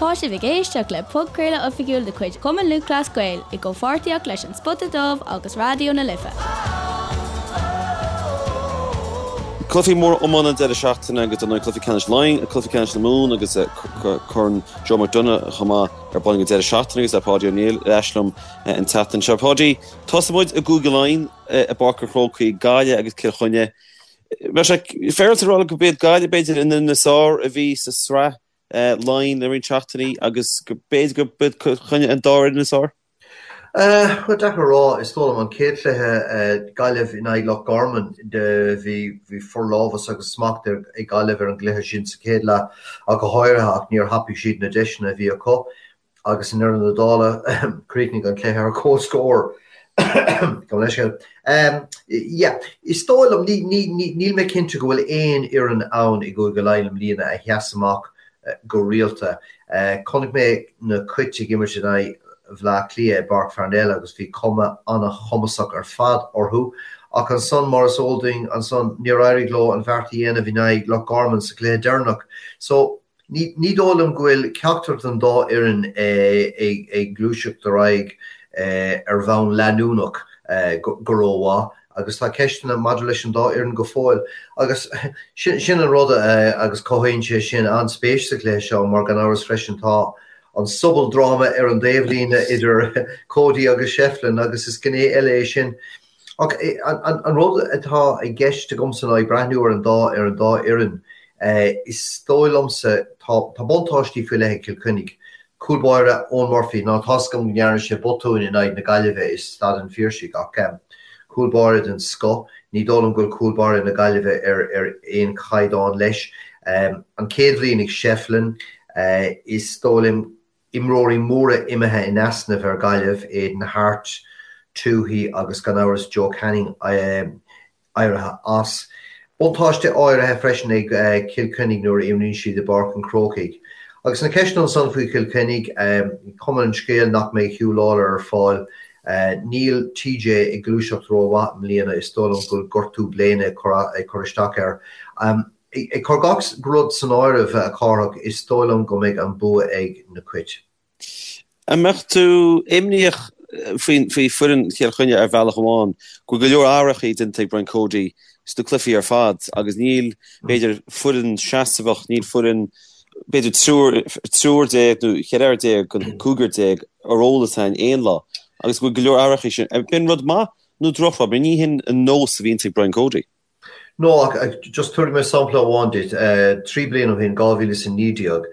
Tá sibh ag éisteacht le podchraoladh oifigiúil de chuid Chumann Lúthchleas Gael i gcomhpháirtíocht leis An Spota Dubh agus Raidió na Life. Cluichí móra iomána an deireadh seachtaine agus dar ndóigh cluiche ceannais Laighean, cluiche ceannais na Mumhan agus Corn Joe McDonagh chomh maith ar bun ag an deireadh seachtaine agus tá Páidí Ó Néill ar ais liom an tseachtain seo. Páidí, tosóidh muid i gCúige Laighean i bPáirc an Chrócaigh, Gaillimh agus Cill Chainnigh. Bheadh sé féaráilte a rá go b'iad Gaillimh b'fhéidir an fhoireann is fearr a bhí sa sraith Laighean le roinnt seachtainí agus go b'fhéidir go b'iad Cill Chainnigh an dara fhoireann is fearr. Bhuel, deacair a rá. Is dóigh liom an chéad chluiche, Gaillimh in aghaidh Loch Garman, bhí bhí forlámhas agus smacht ag Gaillimh ar an gcluiche sin sa chéad leath ach go háirithe ach níor thapaigh siad na deiseanna a bhí acu. Agus i ndeireadh na dála, chríochnaigh an cluiche ar comhscór. Gabh mo leithscéal. Yeah, is dóigh liom, níl mé cinnte go bhfuil aon fhoireann ann i gCúige Laighean i mbliana a sheas amach go rialta. Chonaic mé na Cait ag imirt in aghaidh Bhaile Átha Cliath i bPáirc Pharnell agus bhí cuma an-chumasach ar fad orthu. Ach ansan, mar is eol dúinn, ansan níor éirigh leo an bheart a dhéanamh in aghaidh Loch Garman sa chluiche deireanach. So, Ní dóigh liom go bhfuil ceachtar den dá fhoireann ag gluaiseacht ar aghaidh ar bhonn leanúnach go rómhaith agus tá ceisteanna maidir leis an dá fhoireann go fóill. Agus sin an rud agus cothaíonn sé sin an-spéis sa chluiche seo mar gan amhras freisin tá an sobaldráma ar an dtaobhlíne idir Cody agus Shefflin agus is gné eile é sin. Ach an rud atá i gceist agamsa ná ag breathnú ar an dá ar an dá fhoireann, is dóigh liomsa, tá tá buntáistí faoi leith ag Cill Chainnigh. Cúl báire Eoin Murphy, ná tá's agam go ndearna sé botúin in aghaidh na Gaillimhe i Staid an Phiarsaigh ach cúl báire den scoth, ní dóigh liom go bhfuil cúl báire na Gaillimhe ar ar aon chaighdeán leis. An chéad bhliain ag Shefflin, is dóigh liom, Imreoirí móra imithe in easnamh ar Ghaillimh, Aidan Harte, Tuohy agus gan amhras Joe Canning éirithe as. Buntáiste áirithe freisin ag Cill Chainnigh nuair a imríonn siad i bPáirc an Chrócaigh. Agus na ceisteanna ansan faoi Chill Chainnigh, cuma an scéil nach mbeidh Huw Lawlor ar fáil. Níl TJ ag gluaiseacht rómhaith i mbliana, is dóigh liom go bhfuil gortú bléine ag cur isteach air. Ag cur gach rud san áireamh, a Chárthach, is dóigh liom go mbeidh an bua ag na Cait. An mbeadh tú imníoch faoi foireann Chill Chainnigh ar bhealach amháin, go bhfuil go leor athrachaí déanta ag Brian Cody sna cluichí ar fad agus níl, b'fhéidir, foireann seasmhach, níl foireann, b'fhéidir, triúr déag nó cheithre fhear déag den chúigear déag ar eolas againn aon lá agus go bhfuil go leor athrachaí sin. B'in rud maith nó drochrud? Mar ní hin an nós a bhíonns ag Brian Cody. No, ach just tabharfaidh mé sampla amháin duit. 3 bliana ó shin, 2019,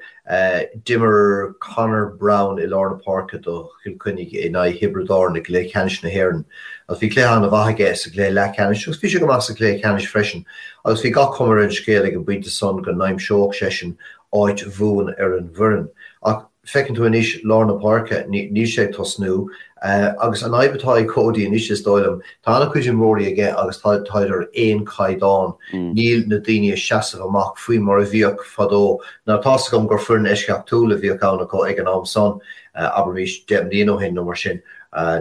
d'imir Conor Browne i lár na páirce do Chill Chainnigh in aghaidh Thiobraid Árann i gcluiche ceannais na hÉireann agus bhí cluiche an-mhaith aige sa gcluiche leathcheannais agus bhí sé go maith sa chluiche ceannais freisin agus bhí gach cuma ar an scéal ag an bpointe san go n-aimseodh seisean áit bhuan ar an bhfoireann. Ach Feiceann tú anois lár na páirce, níl sé ag tosnú. Agus an fhadhb atá ag Cody anois, is dóigh liom, tá an-chuid imreoirí aige agus táid ar aon chaighdeán. Níl na daoine ag seasamh amach faoi mar a bhíodh fadó. Now tá's agam gur foireann eisceachtúil a bhíodh ann acu ag an am san, abraimis 10 mbliana ó shin nó mar sin,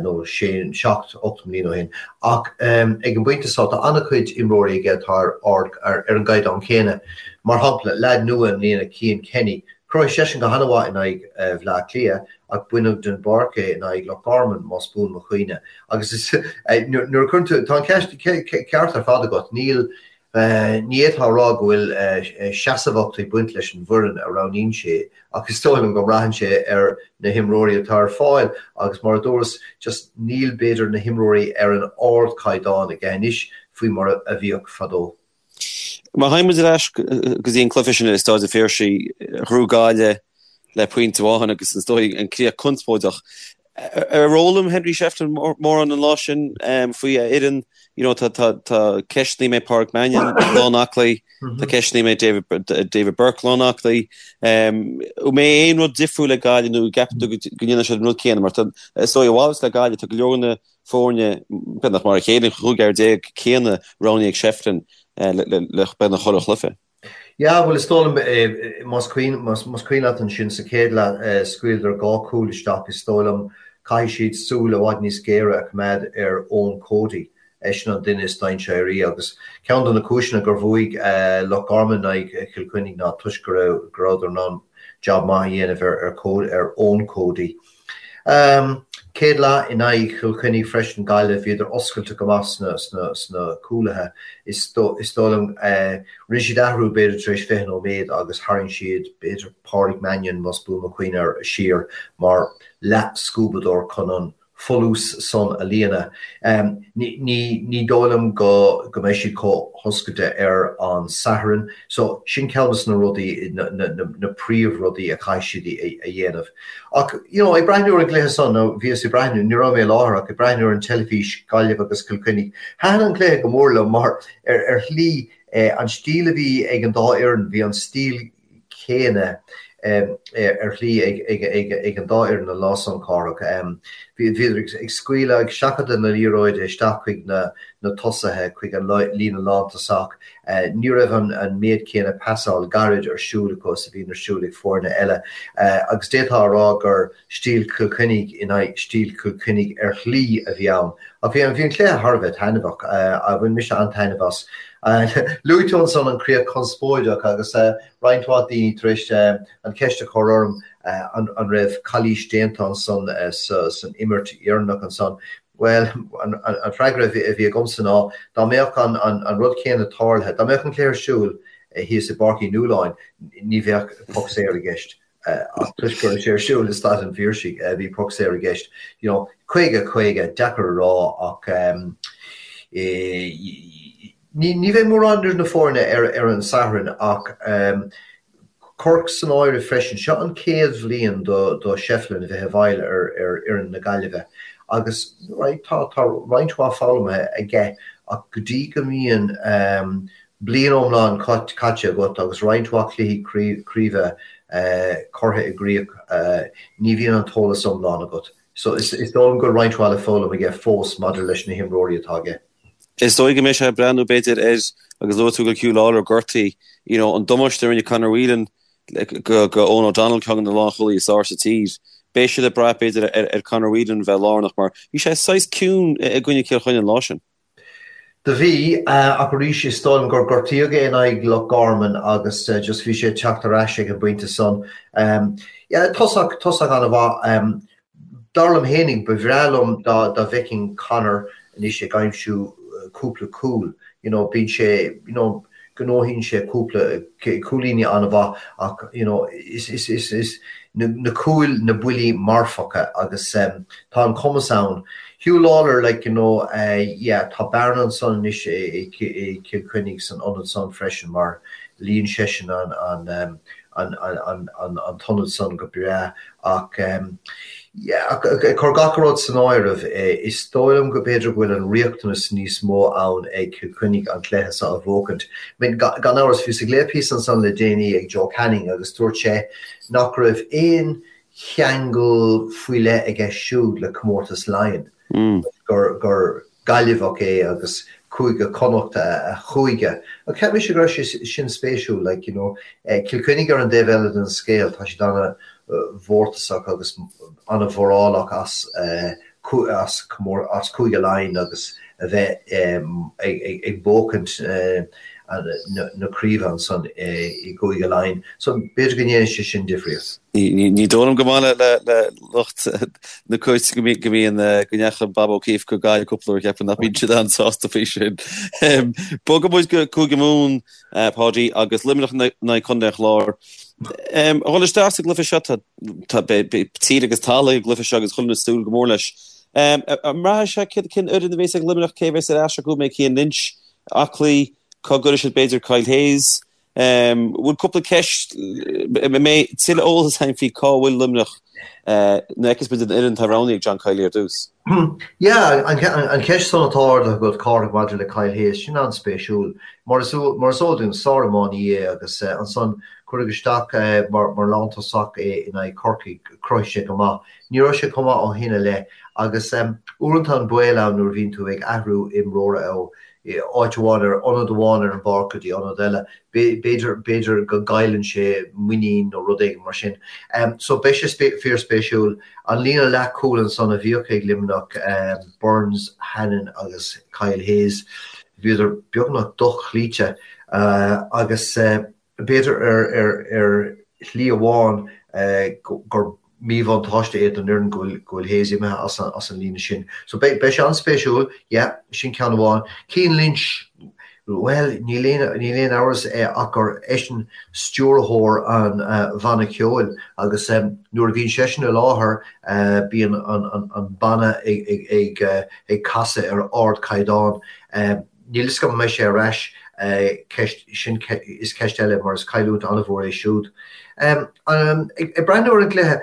nó sé, seacht, 8 mbliana ó shin. Ach ag an bpointe seo tá an-chuid imreoirí aige atá ar ard, ar an gcaighdeán céanna. Mar shampla, leaid nua i mbliana, Cian Kenny, Chruthaigh seisean go han-mhaith in aghaidh Bhleá Cliath ach baineadh den bpáirc é in aghaidh Loch Garman, más buan mo chuimhne. Agus is nuair a chuireann tú, tá an ceist ceart ar fad agat, níl, ní fhéadfá a rá go bhfuil seasmhacht ag baint leis an bhfoireann a roghnaíonn sé ach is dóigh liom go mbraitheann sé ar na himreoirí atá ar fáil agus mar a dúras, just níl b'fhéidir na himreoirí ar an ardchaighdeán aige anois faoi mar a bhíodh fadó. Má théann muid ar ais go dtí an cluiche sin i Stáid an Phiarsaigh, ghnóthaigh Gaillimh le pointe amháin agus is dóigh an críoch conspóideach. Ar fhoghlaim Henry Shefflin mórán an lá sin faoi a fhoireann? You know, tá tá ceisteanna an mbeidh Pádraic Mannion lán aclaí, tá ceisteanna an mbeidh David Burke lán aclaí. An mbeidh aon rud difriúil ag Gaillimh nó an gceapann tú go ndéanfaidh siad an rud céanna? Mar tá, is dóigh, a mhalairt le Gaillimh, tá go leor na foirne, beagnach mar a chéile, an chúigear déag céanna roghnaithe ag Shefflin le beagnach chuile chluiche. Yeah, bhuel is dóigh liom, más cuimhin, más cuimhin leat ansin sa chéad leath scaoileadar dhá chúl isteach, is dóigh liom caithfidh siad súil i bhfad níos géire a choimeád ar Eoin Cody. Eisean an duine is dainséaraí agus ceann de na cúiseanna gur bhuaigh Loch Garman in aghaidh Chill Chainnigh ná toisc go raibh go rabhadar in ann jab maith a dhéanamh ar ar Eoin Cody. Céad leath in aghaidh Chill Chainnigh freisin, Gaillimh, bhíodar oscailte go maith sna sna sna cúlaithe. Is is dóigh liom rinne siad athrú b'fhéidir tar éis 20 nóiméad agus tharraing siad b'fhéidir Pádraig Mannion más buan mo chuimhne air siar mar leath-scuabadóir chun an folús san a líonadh. Ní dóigh liom go mbeidh siad chomh hoscailte ar an Satharn. So, sin ceann de na rudaí, na príomhrudaí a chaithfidh siad a dhéanamh. Ach, you know, ag breathnú ar an gcluiche san, nó bhíos ag breathnú, ní raibh mé i láthair ach ag breathnú ar an teilifís, Gaillimh agus Cill Chainnigh, thaitin an cluiche go mór liom mar ar shlí, an stíl a bhí ag an dá fhoireann, bhí an stíl chéanna ar shlí ag an dá fhoireann an lá san, Cárthach. Bhíodar ag scaoileadh, ag seachadadh na liathróide isteach chuig na tosaithe, chuig an líne lántosach. Ní raibh an méid céanna pasáil gairid ar siúl acu is a bhíonn ar siúl ag foirne eile agus d'fhéadfá a rá gur stíl Chill Chainnigh in aghaidh stíl Chill Chainnigh ar shlí a bhí ann. Ach bhí an cluiche thar a bheith taitneamhach. Bhain mise an-taitneamh as. Luaigh tú ansan an críoch conspóideach agus roinnt mhaith daoine tar éis an cheist a chur orm an raibh calaois déanta ansan san imirt dheireanach ansan. Bhuel, an freagra a bhí agamsa ná dá mbeadh an rud céanna tarlaithe, dá mbeadh an cluiche ar siúl thíos i bPáirc Uí Nualláin, ní bheadh poc saor i gceist. Ach toisc go raibh sé ar siúl i Staid an Phiarsaigh, bhí poc saor i gceist. You know, 50, 50, deacair a rá ach ní bheidh mórán idir na foirne ar an Satharn ach Cork san áireamh freisin. Seo an chéad bhliain do Shefflin a bheith i bhfeighil ar fhoireann na Gaillimhe agus right tá roinnt mhaith foghlamtha aige ach go dtí go mbíonn bliain iomlán caite agat agus roinnt mhaith cluichí craoibhe curtha i gcrích, ní bhíonn an t-eolas iomlán agat. So is dóigh liom go bhfuil roinnt mhaith le foghlaim aige fós maidir leis na himreoirí atá aige. Is dóigh go mbeidh sé ag breathnú b'fhéidir ar, agus luaigh tú go bhfuil Huw Lawlor gortaithe, you know, an damáiste a rinne Conor Whelan go Eoghan O'Donnell, ceann de na lánchúlaithe is fearr sa tír. Beidh siad ag brath b'fhéidir ar Conor Whelan bheith lárnach mar bhí sé saghas ciúin i gcoinne Cill Chainnigh an lá sin. Do bhí, ach arís is dóigh liom gur gortaíodh é in aghaidh Loch Garman agus just bhí sé ag teacht ar ais ag an bpointe san. Yeah, tosach, tosach an-mhaith. Dar liom fhéinig, ba bhreá liom dá dá bhfeicfinn Conor anois ag aimsiú cúpla cúl. You know, bíonn sé, you know, gnóthaíonn sé cúpla cúilíní an-mhaith ach you know is is is is na cúil na buillí marfacha agus tá an cumas ann. Huw Lawlor like you know yeah tá bearna ansan anois i Cill Chainnigh san ionad san freisin mar líon seisean an an an an an an t-ionad san go breá Ach yeah, ag cur gach rud san áireamh, is dóigh liom go b'fhéidir go bhfuil an riachtanas níos mó ann ag Cill Chainnigh an cluiche seo a bhuachaint. I mean, gan amhras, bhíos ag léamh píosa ansan le déanaí ag Joe Canning agus dúirt sé nach raibh aon cheangal faoi leith aige siúd le comórtas Laighean, gur, gur, Gaillimheach é agus Cúige Connacht a chúige. Ach cheap mise go raibh sé sin spéisiúil, like, you know. Cill Chainnigh ar an dtaobh eile den scéal, tá siad an-mhórtasach agus an-mhórálach as as as Cúige Laighean agus a bheith ag buachaint na craoibhe ansan i gCúige Laighean. So b'fhéidir go ndéanfaidh sé sin difríocht. Ní dóigh liom go maith le lucht na cúirte go mbíonn go ndeachaigh Bob O'Keeffe go Gaillimh cúpla uair cheapfainn nach mbíonn siad an-sásta faoi sin. Bogfaidh muid go Cúige Mumhan, Páidí, agus Luimneach in aghaidh Contae an Chláir. A dhul isteach sa gcluiche seo tá tír agus talamh ag an gcluiche seo agus chuile dhuine ag súil go mór leis. An mbraithfidh sé cén fhoireann a bhéas ag Luimneach, cé a bhéas ar ais acu, an mbeidh Cian Lynch aclaí, cá gcuirfidh siad b'fhéidir Kyle Hayes? Bhfuil cúpla ceist, an mbeidh tuilleadh eolas againn faoi cá bhfuil Luimneach nuair a fheicfeas muid an fhoireann atá roghnaithe ag John Kiely ar dtús? Yeah, an cheist san atá ardaithe agat, Cárthach, maidir le Kyle Hayes, sin an-spéisiúil. Mar is eol dúinn, sár-iománaí é agus ansan cuireadh isteach mar lántosach é in aghaidh Chorcaigh, chruthaigh sé go maith. Ní raibh sé chomh maith ó shin i leith agus uaireanta an baol ann nuair a bhíonn tú ag athrú imreora ó. áit amháin ar ionad amháin ar an bpáirc go dtí ionad eile, b'fhéidir, b'fhéidir go gcailleann sé muinín nó rud éigin mar sin. So beidh sé fíorspéisiúil. An líne leathchúil ansan a bhíodh ag Luimneach, Burns, Hannon agus Kyle Hayes, bhíodar beagnach dochloíte agus b'fhéidir ar shlí amháin gur míbhuntáiste é don fhoireann go bhfuil Hayes imithe as an líne sin. So beidh sé an-spéisiúil, yeah, sin ceann amháin. Cian Lynch, bhuel, níl aon amhras ach gur eisean stiúrthóir an bhanna ceoil agus nuair a bhíonn seisean i láthair bíonn an banna ag casadh ar ardchaighdeán. Níl fhios agam an mbeidh sé ar ais, ceist, sin is ceist eile mar is cailliúint an-mhór é siúd. Ag breathnú ar an gcluiche,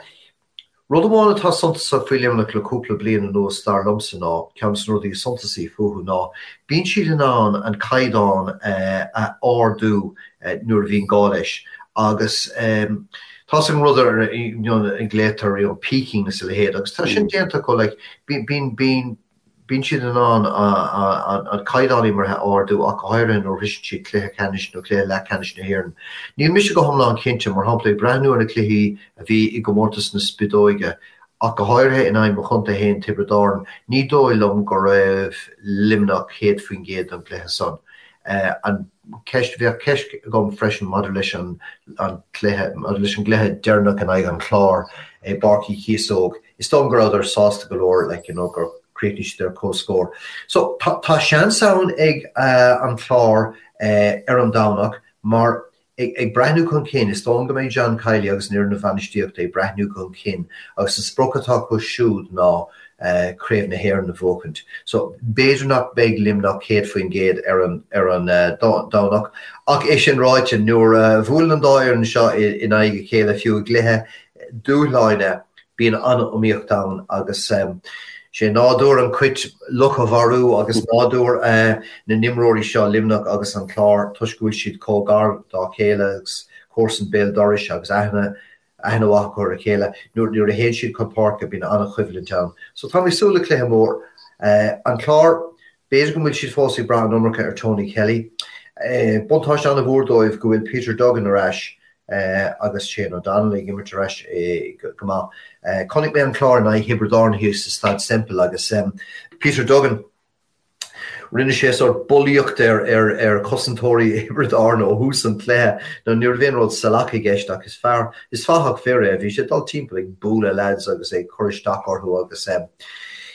rud amháin atá suntasach faoi Luimneach le cúpla bliain anuas dar liomsa ná, ceann de na rudaí is suntasaí fúthu ná, bíonn siad in ann an caighdeán a ardú nuair a bhíonn gá leis agus tá's agat an rud ar a nglaotar you know peaking is a leithéid agus tá sin déanta acu like bíonn, bíonn, Bíonn siad in ann an caighdeán imeartha a ardú ach go háirithe nuair a shroiseann siad cluiche ceannais nó cluiche leathcheannais na hÉireann. Níl mise go hiomlán cinnte, mar shampla, ag breathnú ar na cluichí a bhí i gcomórtas na Spideoige, ach go háirithe in aghaidh mo chontae féin, Tiobraid Árann, ní dóigh liom go raibh Luimneach 100% don gcluiche san. An ceist, bheadh ceist agam freisin maidir leis an cluiche, maidir leis an gcluiche deireanach in aghaidh an Chláir i bPáirc Uí Chíosóg. Is dóigh liom go rabhadar sásta go leor like you know gur chríochnaigh siad ar comhscór. So tá tá seans ann ag an Chlár ar an Domhnach mar ag ag breathnú chun cinn is dóigh liom go mbeidh John Kiely agus an fhoireann bhainistíochta ag breathnú chun cinn agus an sprioc atá acu siúd ná Craobh na hÉireann a bhuachaint. So b'fhéidir nach mbeidh Luimneach 100% ar an ar an Domhnach ach é sin ráite nuair a bhuaileann an dá fhoireann seo in aghaidh a chéile fiú i gcluiche dúshláin, bíonn an-iomaíocht ann agus sé nádúr an chait luch a mharú agus nádúr na n-imreoirí seo, Luimneach agus an Clár, toisc go bhfuil siad chomh gar dá chéile agus comharsan béal dorais agus aithne aithne mhaith acu ar a chéile, nuair a théann siad chun páirce bíonn an-choimhlint ann. So tá mé ag súil le cluiche mór. An Clár, b'fhéidir go bhfuil siad fós ag brath an iomarca ar Tony Kelly. Buntáiste an-mhór dóibh go bhfuil Peter Duggan ar ais agus Shane O'Donnell ag imirt ar ais go maith. Chonaic mé an Clár in aghaidh Thiobraid Árann thíos sa Staid Semple agus Peter Duggan, rinne sé sórt bulaíocht ar ar chosantóirí Thiobraid Árann ó thús an chluiche. Now ní raibh aon rud salach i gceist ach is fear, is fathach fir é, bhí sé ag dul timpeall ag bualadh lads agus ag cur isteach orthu agus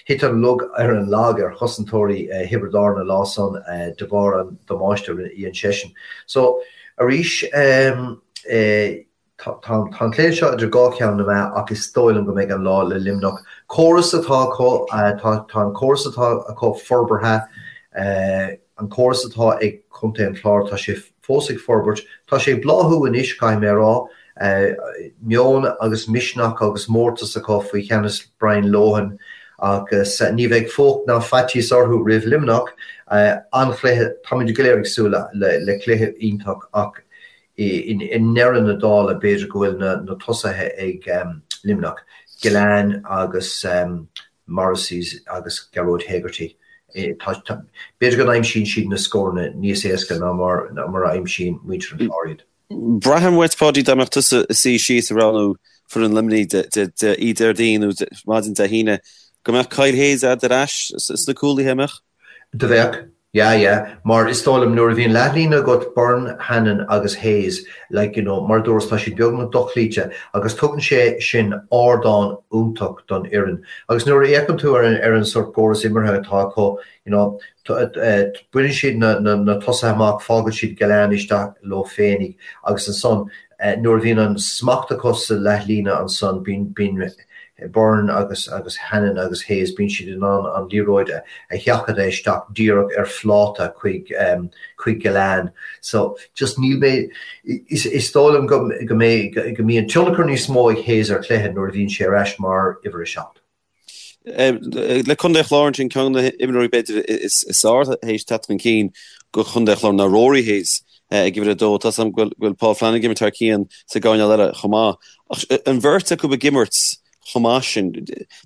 thit an lug ar an lag ar chosantóirí Thiobraid Árann an lá san de bharr an damáiste a dhein seisean. So, Arís, tá an cluiche seo idir dhá cheann na meá ach is dóigh liom go mbeidh an lá le Luimneach. Córas atá acu, tá an córas atá acu forbartha, an córas atá ag contae an Chláir, tá sé fós ag forbairt. Tá sé ag bláthú anois, caithfidh mé a rá. Meon agus misneach agus mórtas acu faoi cheannas Brian Lohan agus ní bheidh fuacht ná faitíos orthu roimh Luimneach. An-chluiche, táimid go léir ag súil le cluiche iontach ach i ndeireadh na dála b'fhéidir go bhfuil na tosaithe ag Luimneach, Gillane agus Morrissey agus Gearóid Hegarty. B'fhéidir go n-aimsíonn siad na scóranna níos éasca ná mar a aimsíonn muintir an Chláir iad. Braithim uait, Páidí, dá mbeadh tusa ag suí síos ag roghnú foireann Luimnigh oíche Déardaoin nó maidin Dé hAoine, go mbeadh Kyle Hayes a'd ar ais sna cúlaithe, an mbeadh? Do bheadh, yeah, yeah. Mar is dóigh liom nuair a bhíonn leathlíne agat, Byrne, Hannon agus Hayes, like, you know, mar a dúras, tá siad beagnach dochloíte agus tugann sé sin ardán iontach don fhoireann. Agus nuair a fhéachann tú ar an, ar an sort córas imeartha atá acu, you know, baineann siad na tosaithe amach, fágann siad Gillane isteach leo féinig agus ansan nuair a bhíonn an smacht acu sa leathlíne ansan bíonn Byrne agus agus Hannon agus Hayes, bíonn siad in ann an liathróid a sheachadadh isteach díreach ar phláta chuig chuig Gillane. So just níl mé, is dóigh liom go go mbeidh go mbíonn tionchar níos mó ag Hayes ar chluiche nuair a bhíonn sé ar ais mar uimhir a 7. Le Contae an Chláir ansin, ceann de na himreoirí b'fhéidir is fearr théis teacht chun cinn do Chontae an Chláir ná Rory Hayes ag uimhir a dó. Tá 's agam go bhfuil Paul Flanagan ag imirt thar cionn sa gcoirnéal eile chomh maith. Ach an bheirt acu ag imirt. chomh maith sin.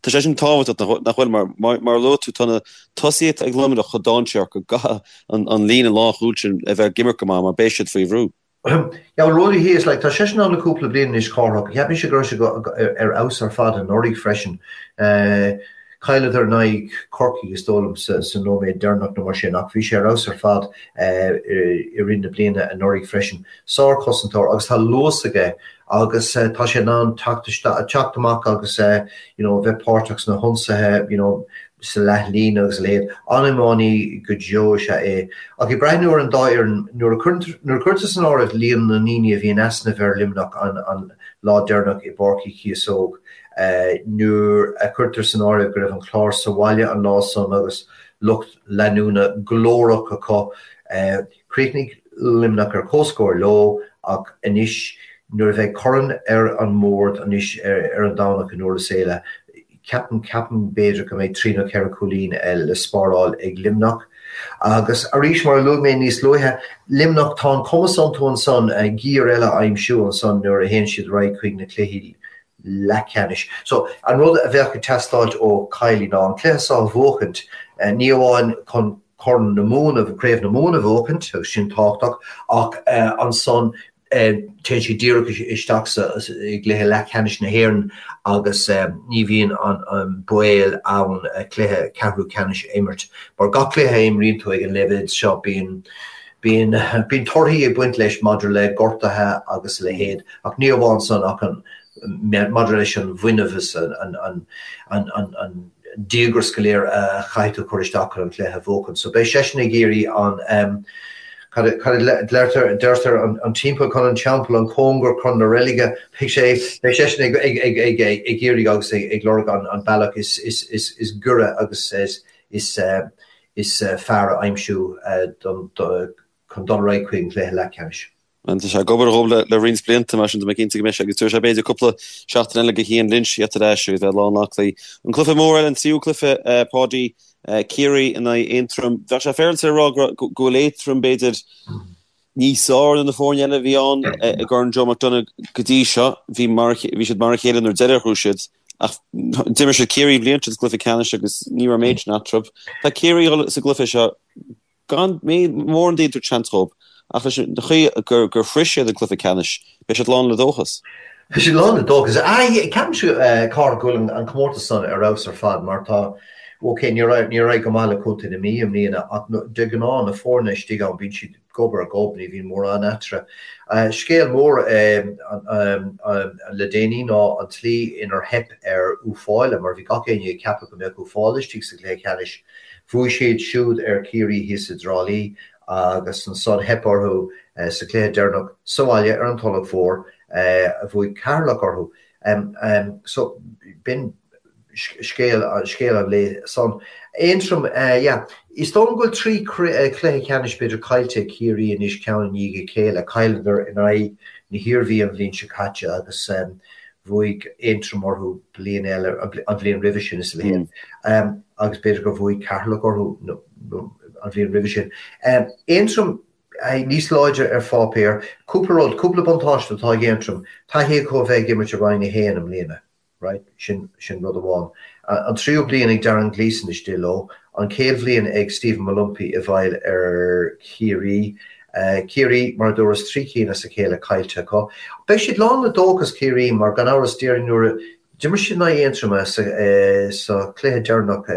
Tá sé sin tábhachtach, nach bhfuil? Mar mar a luaigh tú, tá na tosaithe ag Luimneach chomh dainséarach go gcaithfidh an líne lánchúil sin a bheith ag imirt go maith mar beidh siad faoi bhrú. Yeah, well Ruairí Hayes, like, tá seisean ann le cúpla bliain anois, Cárthach. Cheap mise go raibh sé ar fheabhas ar fad anuraidh freisin. Chailleadar in aghaidh Corcaigh is dóigh liom sa nóiméad deireanach nó mar sin ach bhí sé ar fheabhas ar fad i rith na bliana anuraidh freisin. Sár-chosantóir agus tá luas aige agus tá sé in ann teacht isteach, teacht amach agus you know bheith páirteach sna hionsaithe you know sa leathlíne agus a leithéid. An-iománaí go deo is ea é. Ach ag breathnú ar an dá fhoireann, nuair a nuair a cuirtear san áireamh líon na ndaoine a bhí in easnamh ar Luimneach an an lá deireanach i bPáirc Uí Chíosóg, nuair a cuirtear san áireamh go raibh an Clár sa bhaile an lá san agus lucht leanúna glórach acu, Chríochnaigh Luimneach ar comhscór leo ach anois nuair a bheidh corn ar an mbord anois ar an Domhnach i nDurlas Éile, ceapaim, ceapaim b'fhéidir go mbeidh trí nó ceithre chúilín le spáráil ag Luimneach. Agus arís, mar a luaigh mé níos luaithe, Luimneach, tá an cumas iontu ansan giar eile a aimsiú ansan nuair a théann siad ar aghaidh chuig na cluichí leathcheannais. So, an rud a bheadh ag teastáilt ó Kiely ná an cluiche seo a bhuachaint, ní amháin chun Corn na Mumhan, Craobh na Mumhan a bhuachaint, agus sin tábhachtach, ach ansan téann siad díreach isteach sa i gcluiche leathcheannais na hÉireann agus ní bhíonn an baol ann cluiche ceathrú ceannais a imirt. Mar gach cluiche a imríonn tú ag an leibhéal seo bíonn bíonn bíonn torthaí ag baint leis maidir le gortuithe agus a leithéid, ach ní amháin san ach an maidir leis an bhfuinneamh is an an an an díograis go léir a chaithfidh tú cur isteach chun an cluiche a bhuachan. So beidh seisean ag iarraidh an, cad a deirtear, deirtear an timpeall chun an teampaill, an cóngar chun na reilige, beidh sé, beidh seisean ag, ag, ag, ag, ag iarraidh agus ag, ag lorg an, an bealach is, is, is, is giorra agus is, is, is fearr a aimsiú don, do, chun dul ar aghaidh chuig an gcluiche leathcheannais. Tá sé ag obair dhóibh le roinnt blianta, mar sin tá mé cinnte go mbeidh sé agus tabharfaidh sé b'fhéidir cúpla seachtain eile do Chian Lynch theacht ar ais agus bheith lán aclaí. An cluiche mór eile, an tríú cluiche, Páidí, Ciarraí in aghaidh Aontroim. Bheadh sé féaráilte a rá go bhfuil Aontroim b'fhéidir níos fearr ná na foirne eile a bhí ann i gCorn Joe McDonagh go dtí seo. Bhí bhí siad mar a chéile nuair deireadh a ghnóthaigh siad ach d'imir siad Ciarraí an bhliain seo sa gcluiche ceannais agus ní raibh méid sin eatarthu. Tá Ciarraí sa gcluiche seo Gan mórán daoine ag tabhairt seans dhóibh, ach leis an chaoi gur shroich siad an cluiche ceannais, beidh siad lán le dóchas. Beidh siad lán le dóchas. Ceapaimse, a Chárthaigh, go bhfuil an comórtas san ar fheabhas ar fad mar tá, ok, níor éirigh go maith le Contae na Mí i mbliana ach de ghnáth na foirne istigh ann bíonn siad gob ar ghob, ní bhíonn mórán eatarthu. Scéal mór le déanaí ná an tslí inar theip ar Uíbh Fhailí mar bhí gach éinne ag ceapadh go mbeadh Uíbh Fhailí istigh sa gcluiche ceannais. Bhuaigh siad siúd ar Chiarraí thíos i dTrá Lí agus ansan theip orthu sa chluiche deireanach sa bhaile ar an Tulach Mhór. Bhuaigh Ceatharlach orthu. So b'in scéal scéal an lae san. Aontroim, yeah. Is dóigh liom go bhfuil 3 cluiche ceannais b'fhéidir caillte ag Ciarraí anois ceann i ndiaidh a chéile. Chailleadar in aghaidh na hIarmhí an bhliain seo caite agus bhuaigh Aontroim orthu bliain eile, an bhliain roimhe sin is a leithéid, agus b'fhéidir gur bhuaigh Ceatharlach orthu an bhliain roimhe sin. Aontroim níos láidre ar pháipéar. Cúpla rud, cúpla buntáiste atá ag Aontroim. Taithí acu a bheith ag imirt i Roinn 1 i mbliana, right, sin, sin rud amháin. An tríú bliain ag Darren Gleeson istigh leo, an chéad bhliain ag Stephen Molumphy i bhfeighil ar Chiarraí. Ciarraí, mar a dúras, 3 cinn as a chéile caillte acu. Beidh siad lán le dóchas, Ciarraí, mar gan amhras déarfainn nuair a d'imir siad in aghaidh Aontroma sa chluiche deireanach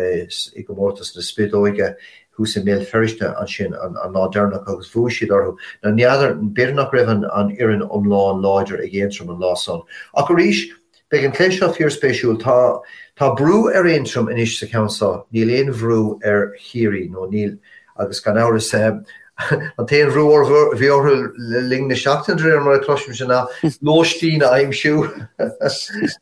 i gcomórtas na Spideoige thuas i mBéal Feirste ansin an lá deireanach agus bhuaigh siad orthu. Now n'fheadar, b'fhéidir nach raibh an fhoireann iomlán láidir ag Aontroim an lá san. Ach arís, Beidh an cluiche seo fíorspéisiúil. Tá tá brú ar Aontroim anois sa cheann seo. Níl aon bhrú ar Chiarraí, nó níl, agus gan amhras, an t-aon bhrú a bhí orthu le linn na seachtaine, de réir mar a chloisimse, ná lóistín a aimsiú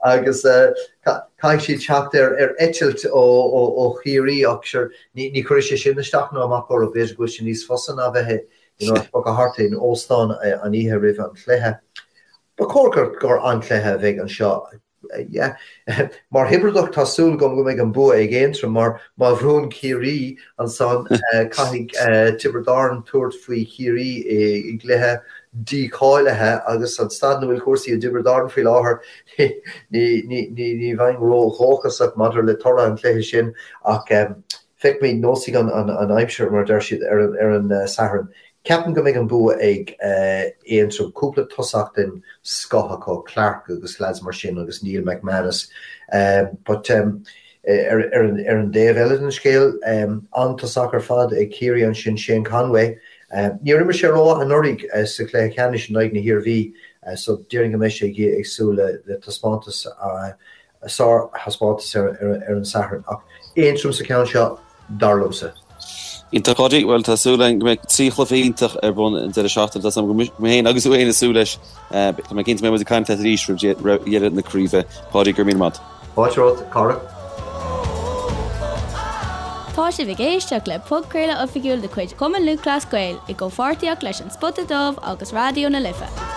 agus caithfidh siad teacht ar ar eitilt ó ó Chiarraí ach sure ní ní chuirfidh sé sin isteach ná amach orthu. B'fhéidir go bhfuil sé níos fusa ná bheith you know, ag bogadh thart in óstán an oíche roimh an chluiche. Ba chóir gur gur an-chluiche a bheidh anseo. Yeah. Mar Thiobradach tá súil agam go mbeidh an bua ag Aontroim mar má bhuann Ciarraí ansan caithfidh Tiobraid Árann tabhairt faoi Chiarraí i gcluiche. dícháilithe agus an staid ina bhfuil cúrsaí i dTiobraid Árann faoi láthair, ní bheinn ró-dhóchasach maidir le toradh an chluiche sin ach feicfimid, neosfaidh an aimsir, mar a deir siad, ar an Satharn. Ceapaim go mbeidh an bua ag Aontroim, cúpla tosach den scoth acu, Clarke agus lads mar sin agus Neil McManus. But ar an dtaobh eile den scéal, an-tosach ar fad ag Ciarraí ansin, Shane Conway. Níor imir sé rómhaith anuraidh sa chluiche ceannais in aghaidh na hIarmhí so déarfainn go mbeidh sé ag súil le taispeántas a sárthaispeántas ar an Satharn. Ach Aontroim sa cheann seo, dar liomsa. Iontach, Páidí. Bhuel, tá súil againn go mbeidh 3 chluiche iontach ar bun an deireadh seachtaine. Tá a fhios agam go mbeidh mé féin agus tú féin ag súil leis. Tá mé cinnte go mbeidh muid ag caint leat arís roimh dheireadh na craoibhe. Páidí, go raibh míle maith. Fáilte romhat, a chara. Tá sibh ag éisteacht le podchraoladh oifigiúil de chuid Chumann Lúthchleas Gael i gcomhpháirtíocht leis An Spota Dubh agus Raidió na Life.